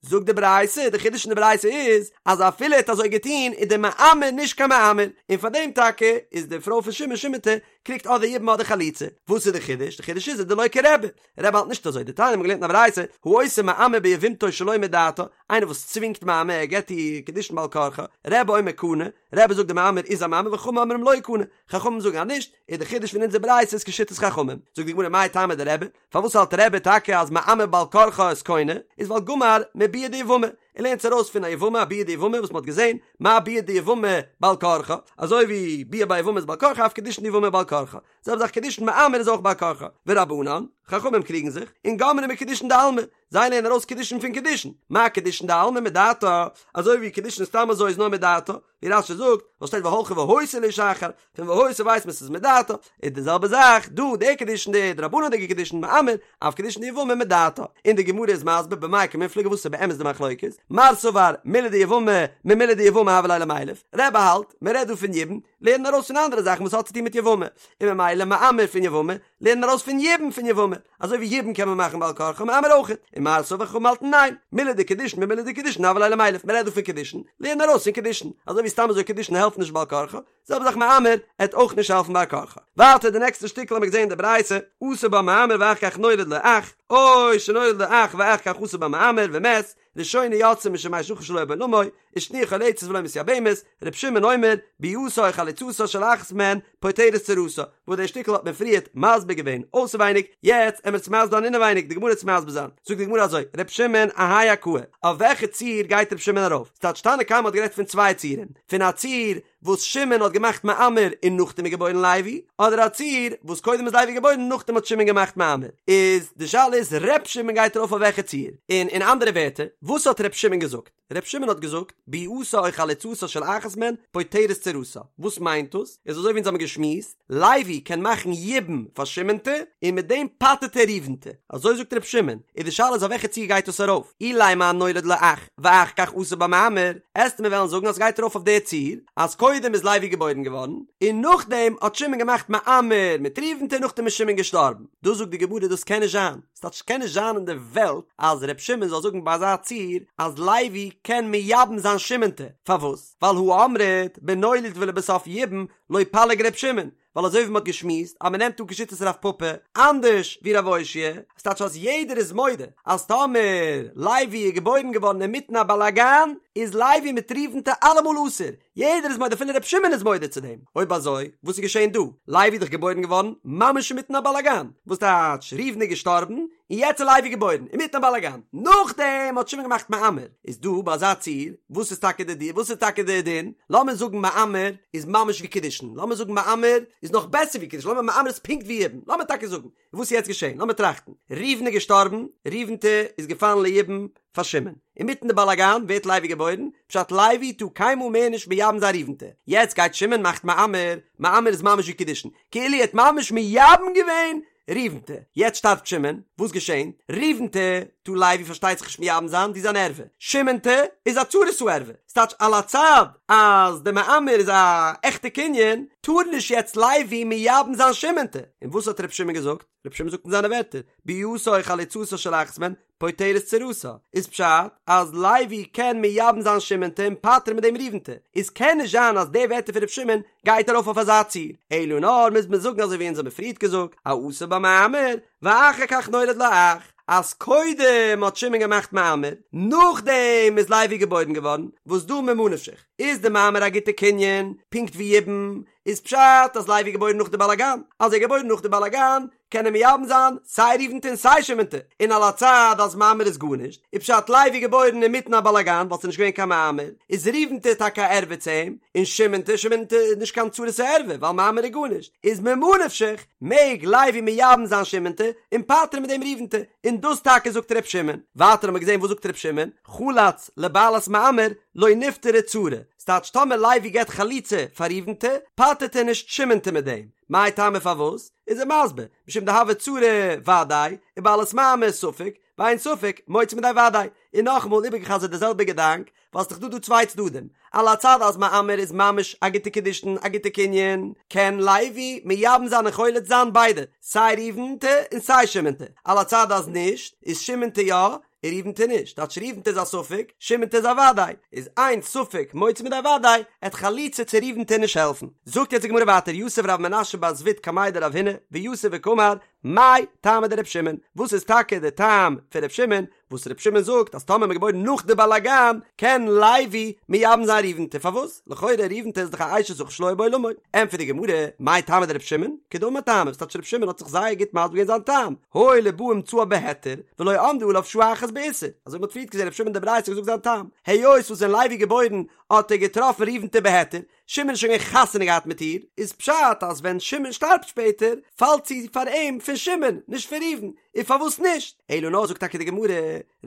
זאגט די ברייתא, די חידוש אין די ברייתא איז אז אפילו ער האט אזוי געטון איז די מאמר נישט קיין מאמר, און פאר דעם טאקע איז די פרוי פון שמעון שמעונ'טע קריגט אדער יבום אדער חליצה, וואס איז די חידוש? די חידוש איז דלא כרבי, רבי האלט נישט אזוי, דתניא מ'האט געלערנט אין א ברייתא, העושה מאמר ביבמתו שלא מדעתה, איינער וואס צווינגט מאמר, ער געבט איר קידושין בעל כרחה, רבי אומר קנה, רבי זאגט די מאמר איז א מאמר וחכמים אומרים לא קנה, חכמים זאגן אז נישט, איז די חידוש פון אונזער ברייתא איז כשיטת חכמים, זאגט די גמרא מאי טעמא דרבי, פארוואס האלט רבי טאקע אז מאמר בעל כרחה איז קונה, איז ווייל גמר מביאה דיבמה, ער לערנט עס ארויס פון א יבמה, א ביאה דיבמה וואס מען האט געזען, מה ביאה דיבמה בעל כרחה, אזוי ווי ביאה ביי יבמה איז בעל כרחה אף קידושין דיבמה בעל כרחה, זעלבע זאך קידושין מאמר איז אויך בעל כרחה, ורבנן, חכמים קריגן זיך, און גמרי מקידושין דעלמא, זיי לערנען ארויס קידושין פון קידושין, מה קידושין דעלמא מדעתה, אזוי ווי קידושין סתם אזוי איז נאר מדעתה, ווי רש"י זאגט, ווייל שטייט והלכה והיתה לאיש אחר, פון והיתה ווייסט מען ס'איז מדעתה, איז די זעלבע זאך דא, די קידושין די דרבנן'דיגע קידושין מאמר, אף קידושין דיבמה מדעתה, און די גמרא איז מסביר במאי קמיפלגי וואס איז באמת די מחלוקת, מר סבר מילי דיבמה ממילי דיבמה הוה ליה למילף, רבי האלט, מען רעדט דא פון יבום, לערנען ארויס פון אנדערע זאכן וואס האט צוטון מיט יבמה, און ממילא מאמר פון יבמה, לערנען ארויס פון יבום פון יבמה, אזוי ווי יבום קען מען מאכן בעל כרחו מאמר אויכעט, און מר סבר חכמים האלטן ניין, מילי דקידושין ממילי דקידושין הוה ליה למילף, מען רעדט דא פון קידושין, לערנען ארויס פון קידושין, אזוי ווי סתם אזוי קידושין העלפט נישט בעל כרחו, זעלבע זאך מאמר, עט אויך נישט העלפן בעל כרחו. ווייטער די נעקסטע שטיקל האמיר געזען אין די ברייתא, עשה בה מאמר ואחר כך נולד לו אח, או שנולד לו אח ואחר כך עשה בה מאמר ומת, ראשונה יוצאה משום אשת אחיו שלא היה בעולמו, ושניה חולצת ולא מתייבמת, ר' שמעון אומר, ביאתה או חליצתה של אחת מהן פוטרת צרתה, וואס די שטיקל האט מען פריערט מסביר געווען אויסעווייניג, יעצט עמער עס מסביר זיין אינעווייניג, די גמרא עט עס מסביר זיין, זאגט די גמרא אזוי, ר' שמעון אהייא קאי, אויף וועלכע ציור גייט ר' שמעון ארויף? ס'טייטש תנא קמא האט גערעדט פון צוויי ציורים, פון א ציור וואס שמעון האט געמאכט מאמר און נאכדעם איז געבוירן לוי, אדער א ציור וואס קודם איז לוי געבוירן און נאכדעם האט שמעון געמאכט מאמר, איז די שאלה איז ר' שמעון גייט ארויף אויף וועלכע ציור? און אין אנדערע ווערטער, וואס האט ר' שמעון געזאגט? ר' שמעון האט געזאגט, ביאתה או חליצתה של אחת מהן פוטרת צרתה, וואס מיינט דאס? איז אזוי ווי אונז האבן געשמועסט, לוי קען מאכן יבום פאר שמעון'טע, און מיט דעם פטר'ט ער ראובן'טע, אזוי זאגט ר' שמעון, איז די שאלה איז אויף וועלכע ציור גייט דאס ארויף? אילימא אנולד לו אח, ואחר כך עשה בה מאמר, עסטו מיר וועלן זאגן אז ס'גייט ארויף אויף די ציור, אז קודם איז לוי געבוירן געווארן, און נאכדעם האט שמעון געמאכט מאמר מיט ראובן'טע און נאכדעם איז שמעון געשטארבן. דאס זאגט די גמרא דאס קען נישט זיין, ס'טייטש ס'קען נישט זיין אין די וועלט אז ר' שמעון זאל זאגן ביי אזא ציור אז לוי קען מייבם זיין שמעון'טע, פארוואס? ווייל הא אמרת בנולד ולבסוף ייבם לא פליג ר' שמעון, ווייל אזוי ווי מ'האט געשמועסט אז מ'נעמט אן כשיטת רב פפא אנדערש ווי רב אושעיא, ס'טייטש אז יעדער איז מודה אז טאמער לוי איז געבוירן געווארן אינמיטן א באלאגאן איז לוי מיט ראובן'טע אלעמאל אסור, יעדער איז מודה אפילו ר' שמעון איז מודה צו דעם, אויב אזוי וואס איז געשען דא? לוי איז דאך געבוירן געווארן ממש אינמיטן א באלאגאן, וואס טייטש ראובן איז געשטארבן און יעצט איז לוי געבוירן אינמיטן א באלאגאן, נאכדעם האט שמעון געמאכט מאמר, איז דא ביי אזא ציור, וואס איז טאקע די דין, וואס איז טאקע די דין, לאמיר זאגן מאמר איז ממש ווי קידושין, לאמיר זאגן מאמר איז נאך בעסער ווי קידושין, לאמיר מאמר איז פונקט ווי יבום, לאמיר טאקע זאגן, וואס איז יעצט געשען, לאמיר טראכטן, ראובן איז געשטארבן, ראובן'טע איז געפאלן ליבום פאר שמעון, אינמיטן די באלאגאן ווערט לוי געבוירן, פשט לוי טאר קיינמאל מער נישט מייבם זיין ראובן'טע, יעצט גייט שמעון מאכט מאמר, מאמר איז ממש ווי קידושין, כאילו ער האט ממש מייבם געווען ראובן'טע, יעצט שטארבט שמעון, וואס געשענט? ראובן'טע טאר לוי פארשטייט זיך נישט מייבם זיין, זי איז אן ערווה. שמעון'טע איז א צרת הערווה. ס'טייטש על הצד אז די מאמר איז א עכטע קנין, טאר נישט יעצט לוי מייבם זיין שמעון'טע. און וואס האט ר' שמעון געזאגט? ר' שמעון זאגט אין זיינע ווערטער, ביאתה או חליצתה של אחת מהן, פוטרת צרתה, איז פשט אז לוי קען מייבם זיין שמעון'טע און פטר'ן מיט דעם ראובן'טע, איז קען נישט זיין אז די ווערטער פון ר' שמעון גייט ארויף אויף אזא ציור, אלא נאר מוז מען זאגן אזוי ווי אונז האבן פריערט געזאגט, אעשה בה מאמר, ואחר כך נולד לו אח, אז קודם האט שמעון געמאכט מאמר, נאכדעם איז לוי געבוירן געווארן, וואס דא ממה נפשך, איז די מאמר א גוטע קנין, פונקט ווי יבום, איז פשט אז לוי געבוירן נאך די באלאגאן, אז ער איז געבוירן נאך די באלאגאן, קען ער מייבם זיין סיי ראובן'טע און סיי שמעון'טע, און על הצד אז מאמר איז גארנישט, איז פשט לוי געבוירן אינמיטן א באלאגאן ווייל ס'איז נישט געווען קיין מאמר, איז ראובן'טע טאקע א ערווה צו אים, און שמעון'טע, שמעון'טע איז נישט קיין צרת הערווה ווייל מאמר איז גארנישט, איז ממה נפשך מעג לוי מייבם זיין שמעון'טע און פטר'ן מיט דעם ראובן'טע, און דאס טאקע זאגט ר' שמעון. ווייטער האבן מיר געזען וואס זאגט ר' שמעון, חלץ לבעלת מאמר לא נפטרה צרה, ס'טייטש טאמער לוי געבט חליצה פאר ראובן'טע, פטר'ט ער נישט שמעון'טע מיט דעם, מאי טעמא פארוואס? איז ער מסביר, משום דהוה צרה ודאי, ובעלת מאמר ספק, ואין ספק, מוציא מידי ודאי. און נאכאמאל איבערגעחזרט די זעלבע געדאנק, ווייל ס'דאך דא דא צוויי צדדים, על הצד אז מאמר איז ממש א גוטע קידושין א גוטע קנין, קען לוי מייבם זיין און חולץ זיין ביידע, סיי ראובן'טע און סיי שמעון'טע, על הצד אז נישט, איז שמעון'טע יא, און ראובן'טע נישט, טייטש ראובן'טע איז א ספק, שמעון'טע איז א וודאי, איז אין ספק מוציא מידי וודאי, עט חליצה צו ראובן'טע נישט העלפן. זאגט יעצט די גמרא ווייטער יתיב רב מנשיא בר זביד קמיה דרב הונא, ויתיב וקאמר, מאי טעמא דר' שמעון, וואס איז טאקע די טעם פון ר' שמעון, וואס ר' שמעון זאגט אז טאמער מ'איז געבוירן נאך די באלאגאן קען לוי מייבם זיין ראובן'טע, פארוואס? לכאורה ראובן'טע איז דאך א אשת אח שלא היה בעולמו. ענטפערט די גמרא, מאי טעמא דר' שמעון, כדאמר טעמא, וואס טייטש ר' שמעון האט זיך זייער גוט מסביר געווען זיין טעם, הואיל ובא ומצאה בהיתר, ולא עמדה עליו שעה אחת באיסור, אזוי ווי מ'האט פריערט געזען ר' שמעון די ברייתא געזאגט זיין טעם, היות וואס ווען לוי געבוירן האט ער געטראפן ראובן'טע בהיתר, שמעון איז שוין געווען חתונה געהאט מיט איר, איז פשט אז ווען שמעון שטארבט שפעטער, פאלט זי פאר אים פון שמעון, נישט פון ראובן, און פארוואס נישט? אלא נאר זאגט טאקע די גמרא,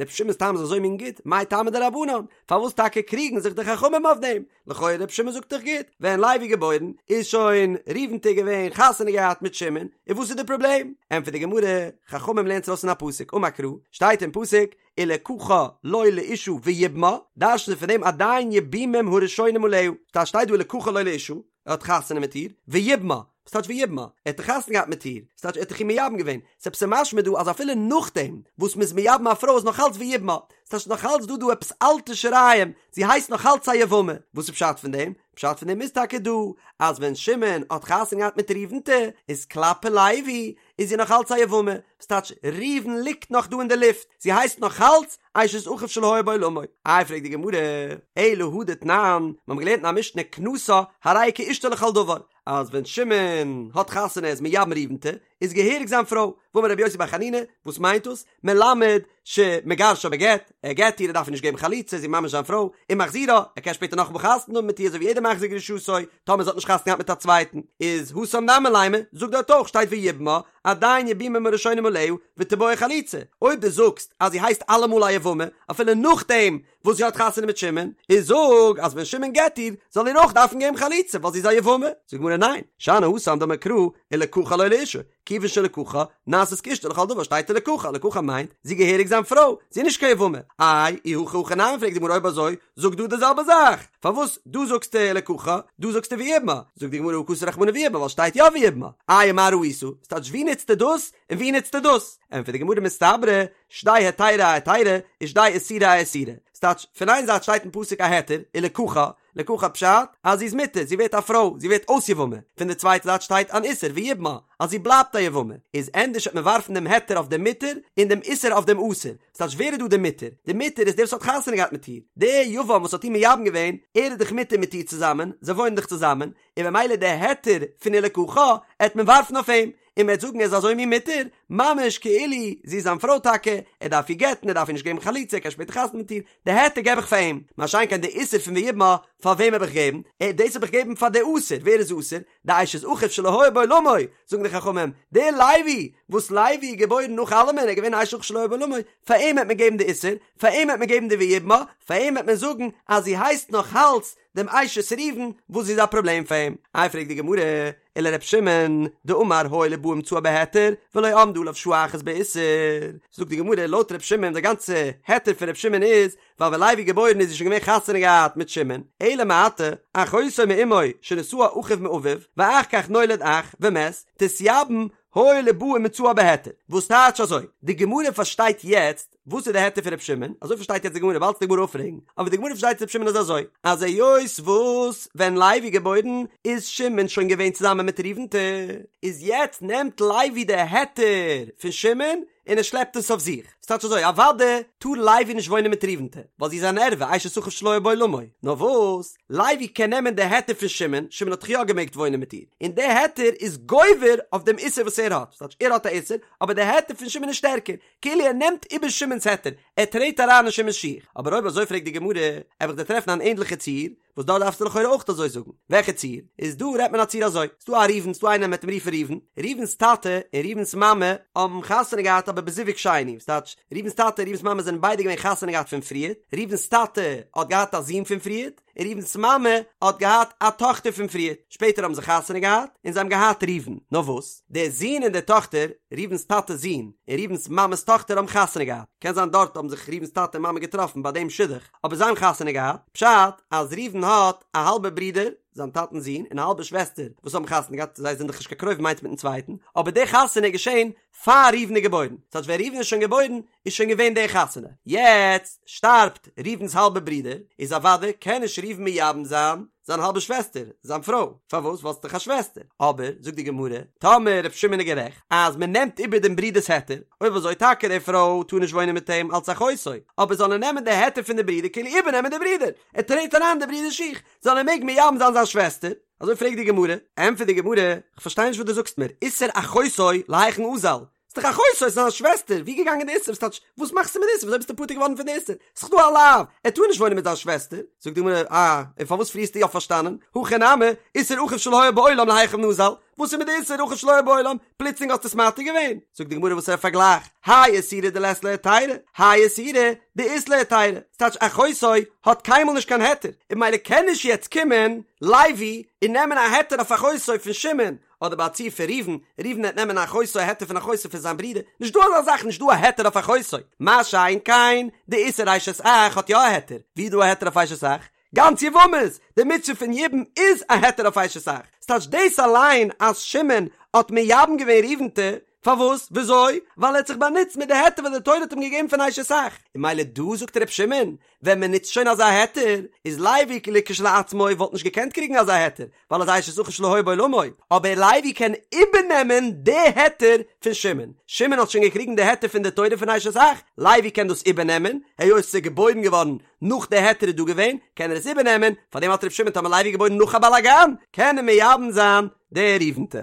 ר' שמעון'ס טעם איז אזוי מין גוט, מאי טעמא דרבנן, פארוואס טאקע קריגן זיך די חכמים אויף דעם? לכאורה ר' שמעון זאגט דאך גוט, ווען לוי איז געבוירן איז שוין ראובנ'טע געווען חתונה געהאט מיט שמעון, און וואס איז די פראבלעם? ענטפערט די גמרא, חכמים לערנט ארויס פון א פסוק, אמר קרא, שטייט אין פסוק, ולקחה לו לאשה ויבמה, דרש'נט פון דעם עדיין יבומים הראשונים עליה, ס'שטייט דא ולקחה לו לאשה, ער האט חתונה מיט איר, ויבמה, וואס טייטש ויבמה? ער האט דאך חתונה געהאט מיט איר, ס'טייטש ער האט דאך איר מייבם געווען, ס'איז עפעס משמע דא אז אפילו נאכדעם וואס מ'איז מייבם א פרוי איז נאך אלץ ויבמה, ס'טייטש נאך אלץ דא דא עפעס אלטע שיריים, זי הייסט נאך אלץ א יבמה, וואס איז פשט פון דעם? פשט פון דעם איז טאקע דא אז ווען שמעון האט חתונה געהאט מיט ראובנ'טע איז כלפי לוי איז זי נאך אלץ א יבמה, ס'טייטש ראובן ליגט נאך דא אין די לופט, זי הייסט נאך אלץ אשת אחיו שלא היה בעולמו. איי פרעגט די גמרא, אלא הא דתנן, מיר האבן געלערנט אין א משנה כנסה הרי היא כאשתו לכל דבר, אז ווען שמעון האט חתונה איז מייבם ראובנ'טע, איז געהעריג זיין פרוי, ואמר רבי יוסי בר חנינא, וואס מיינט דאס? מלמד שמגרשה בגט, ער גט איר ער דארף איר נישט געבן חליצה, זי איז ממש זיין פרוי, ומחזירה, ער קען שפעטער נאכאמאל חתונה האבן מיט איר אזוי ווי יעדער מחזיר גרושתו, טאמער זי האט נישט חתונה געהאט מיט א צווייטן, איז התם נמי לימא, זאג דארט אויך שטייט ויבמה, עדיין יבומים הראשונים עליה, ותיבעי חליצה, אויב דו זאגסט אז זי הייסט אלעמאל א יבמה, אפילו נאכדעם וואס זי האט חתונה מיט שמעון, איז זאג אז ווען שמעון גט איר, זאל איר אויך דארפן געבן חליצה ווייל זי איז א יבמה. זאגט די גמרא ניין, שאני התם דאמר קרא ולקחה לו לאשה, כיוון שלקחה, נעשית כאשתו לכל דבר, שטייט ולקחה, לקחה מיינט, זי געהעריג זיין פרוי, זי איז נישט קיין יבמה. איי, אי הכי הכא נמי פרעגט די גמרא אויב אזוי, זאג דא די זעלבע זאך, פארוואס דא זאגסטו ולקחה, דא זאגסטו ויבמה, זאגט די גמרא הא כתב רחמנא ויבמה ווייל שטייט יא ויבמה, איי ומה ראית, ס'טייטש ווי נוצטו דאס און ווי נוצטו דאס? ענטפערט די גמרא מסתברא, שדי היתירא אהיתירא, ושדי איסורא אאיסורא. ס'טייטש, פון איין זייט שטייט אין פסוק א היתר, ולקחה, לקחה פשט, אז זי איז מותר, זי ווערט א פרוי, זי ווערט אויס יבמה. פון די צווייטע זייט שטייט אן איסור, ויבמה, אז זי בלייבט א יבמה. איז ענדערש וועט מען ווארפן דעם היתר אויף דעם מותר, און דעם איסור אויף דעם אסור. ס'טייטש ווער איז דא דער מותר? דער מותר איז דער וואס האט חתונה געהאט מיט איר. דער יבם וואס האט איר מייבם געווען, ער איז דאך מותר מיט איר צוזאמען, זיי וואוינען דאך צוזאמען, און במילא דער היתר פון ולקחה, עט מען ווארפן אויף אים. און מ'וועט זאגן ער איז אזוי מין מותר, ממש כאילו זי איז זיין פרוי טאקע, ער דארף איר גט'ן, ער דארף איר נישט געבן חליצה, ער קען שפעטער חתונה מיט איר, די היתר געב איך פאר אים, מה שאין כן די איסור פון ויבמה, פאר וועם האב איך געגעבן? אה, דאס האב איך געגעבן פאר די אסור, ווער איז אסור? די אשת אחיו שלא היה בעולמו, זאגן די חכמים, דער לוי, וואס לוי איז געבוירן נאך אלעמען, ער איז געווען אשת אחיו שלא היה בעולמו, פאר אים וועט מען געבן די איסור, פאר אים וועט מען געבן די ויבמה, פאר אים וועט מען זאגן אז זי הייסט נאך אלץ דעם אשת ראובן וואס זי איז א פראבלעם פאר אים. איי פרעגט די גמרא, ולר' שמעון דאמר הואיל ובא ומצאה בהיתר ולא עמדה עליו שעה אחת באיסור, זאגט די גמרא לויט ר' שמעון די גאנצע היתר פון ר' שמעון איז ווייל ווען לוי איז געבוירן איז זי שוין געווען חתונה געהאט מיט שמעון, אלא מעתה אחותו מאמו שנשאה אחיו מאביו ואחר כך נולד אח ומת תתייבם הואיל ובא ומצאה בהיתר, וואס טייטש אזוי? די גמרא פארשטייט יעצט וואס איז די היתר פון ר' שמעון, אזוי פארשטייט יעצט די גמרא, באלד וועט די גמרא אפפרעגן, אבער די גמרא פארשטייט ר' שמעון איז אזוי, אז היות וואס ווען לוי איז געבוירן איז שמעון שוין געווען צוזאמען מיט ראובנ'טע, איז יעצט נעמט לוי די היתר פון שמעון און ער שלעפט עס אויף זיך, ס'טייטש אזוי, אוודאי טאר לוי נישט וואוינען מיט ראובנ'טע, ווייל זי איז אן ערווה, אשת אחיו שלא היה בעולמו, נאר וואס, לוי קען נעמען די היתר פון שמעון, שמעון האט דאך יא געמעגט וואוינען מיט איר, און די היתר איז גובר אויף דעם איסור וואס ער האט, ס'טייטש ער האט א איסור, אבער די היתר פון שמעון איז שטערקער, כאילו ער נעמט איבער שמעון'ס היתר, ער טרעט אריין אין שמעון'ס שיך. אבער אויב אזוי פרעגט די גמרא, וועל איך דיר טרעפן אן ענדליכע ציור, וואס דארט דארפסטו לכאורה אויך אזוי זאגן. וועלכע ציור? איז דא רעדט מען א ציור אזוי, ס'דא א ראובן, ס'דא איינער מ'עט אים רופן ראובן, ראובן'ס טאטע און ראובן'ס מאמע האבן חתונה געהאט אבער בזיווג שני, וואס טייטש, ראובן'ס טאטע און ראובן'ס מאמע זענען ביידע געווען חתונה געהאט פון פריערט, ראובן'ס טאטע האט געהאט א זון פון פריערט, און ראובן'ס מאמע האט געהאט א טאכטער פון פריער, שפעטער האבן זיי חתונה געהאט און זיי האבן געהאט ראובן, נאר וואס, דער זון און די טאכטער, ראובן'ס טאטע'ס זון און ראובן'ס מאמע'ס טאכטער האבן חתונה געהאט, קען זיין דארט האבן זיך ראובן'ס טאטע און מאמע געטראפן ביי דעם שידוך, אבער זיי האבן חתונה געהאט, פשט אז ראובן האט א האלבע ברודער, זיין טאטענ'ס זון, און א האלבע שוועסטער וואס האבן חתונה געהאט, זיי זענען דאך נישט קיין קרובים איינס מיטן צווייטן, אבער די חתונה איז געשען פאר ראובן איז געבוירן, ס'טייטש ווען ראובן איז שוין געבוירן איז שוין געווען די חתונה, יעצט שטארבט ראובן'ס האלבע ברודער, איז אוודאי קען נישט ראובן מייבם זיין זיין האלבע שוועסטער, זיין פרוי, פארוואס? ווייל ס'איז דאך א שוועסטער, אבער זאגט די גמרא, טאמער ר' שמעון איז גערעכט אז מען נעמט איבער דעם ברודער'ס היתר, אויב אזוי טאקע די פרוי טאר נישט וואוינען מיט אים אלץ אחותו, אבער זאל ער נעמען די היתר פון די ברודער כאילו איבערנעמען די ברודער, ער טרעט אריין די ברודער'ס שיך, זאל ער מעגן מייבם זיין זיין שוועסטער. אזוי פרעגט די גמרא, ענטפערט די גמרא, כ'פארשטיי נישט וואס דו זאגסט מיר, איסור אחותו להיכן אזל? ס'איז דאך אחותו, ס'איז זיין שוועסטער, ווי געגאנגען די איסור? ס'טייטש, וואס מאכסטו מיט די איסור? וויאזוי ביסטו פטור געווארן פון די איסור? ס'איז דא א לאו, ער טאר נישט וואוינען מיט זיין שוועסטער. זאגט די גמרא, אה, און פארוואס פריער האסטו יא פארשטאנען? הכא נמי, איסור אחיו שלא היה בעולם להיכן נזל? וואס איז מיט די איסור אחיו שלא היה בעולם? פלוצלינג האסטו עס מתיר געווען? זאגט די גמרא וואסערע פארגלייך, האי איסורא דלית ליה היתירא, האי איסורא דאית ליה היתירא, ס'טייטש אחותו האט קיינמאל נישט קיין היתר, און ממילא קען נישט יעצט קומען לוי און נעמען א היתר אויף אחותו פון שמעון, אדער ביי א ציור פון ראובן, ראובן העט נעמען אחותו א היתר פון אחותו פון זיין ברודער, נישט דא אזא זאך נישט דא א היתר אויף אחותו, מה שאין כן די איסור אשת אח האט יא א היתר, ווי איז דא א היתר אויף אשת אח? גאנץ יבמות, די מצוה פון יבום איז א היתר אויף אשת אח, ס'טייטש דאס אליין אז שמעון האט מייבם געווען ראובנ'טע, פארוואס? וויאזוי? ווייל ער האט זיך באנוצט מיט די היתר וואס די תורה האט אים געגעבן פון אשת אח, און ממילא דא זאגט ר' שמעון, ווען מען נוצט שוין אזא היתר, איז לוי לכשלעצמו וואלט נישט געקענט קריגן אזא היתר, ווייל ער איז אשת אחיו שלא היה בעולמו, אבער לוי קען איבערנעמען די היתר פון שמעון, שמעון האט שוין געקריגן די היתר פון די תורה פון אשת אח, לוי קען דאס איבערנעמען, היות עס איז געבוירן געווארן נאך די היתר איז דא געווען, קען ער עס איבערנעמען, פארדעם האלט ר' שמעון טאמער לוי געבוירן נאך א באלאגאן, קען ער מייבם זיין די ראובנ'טע.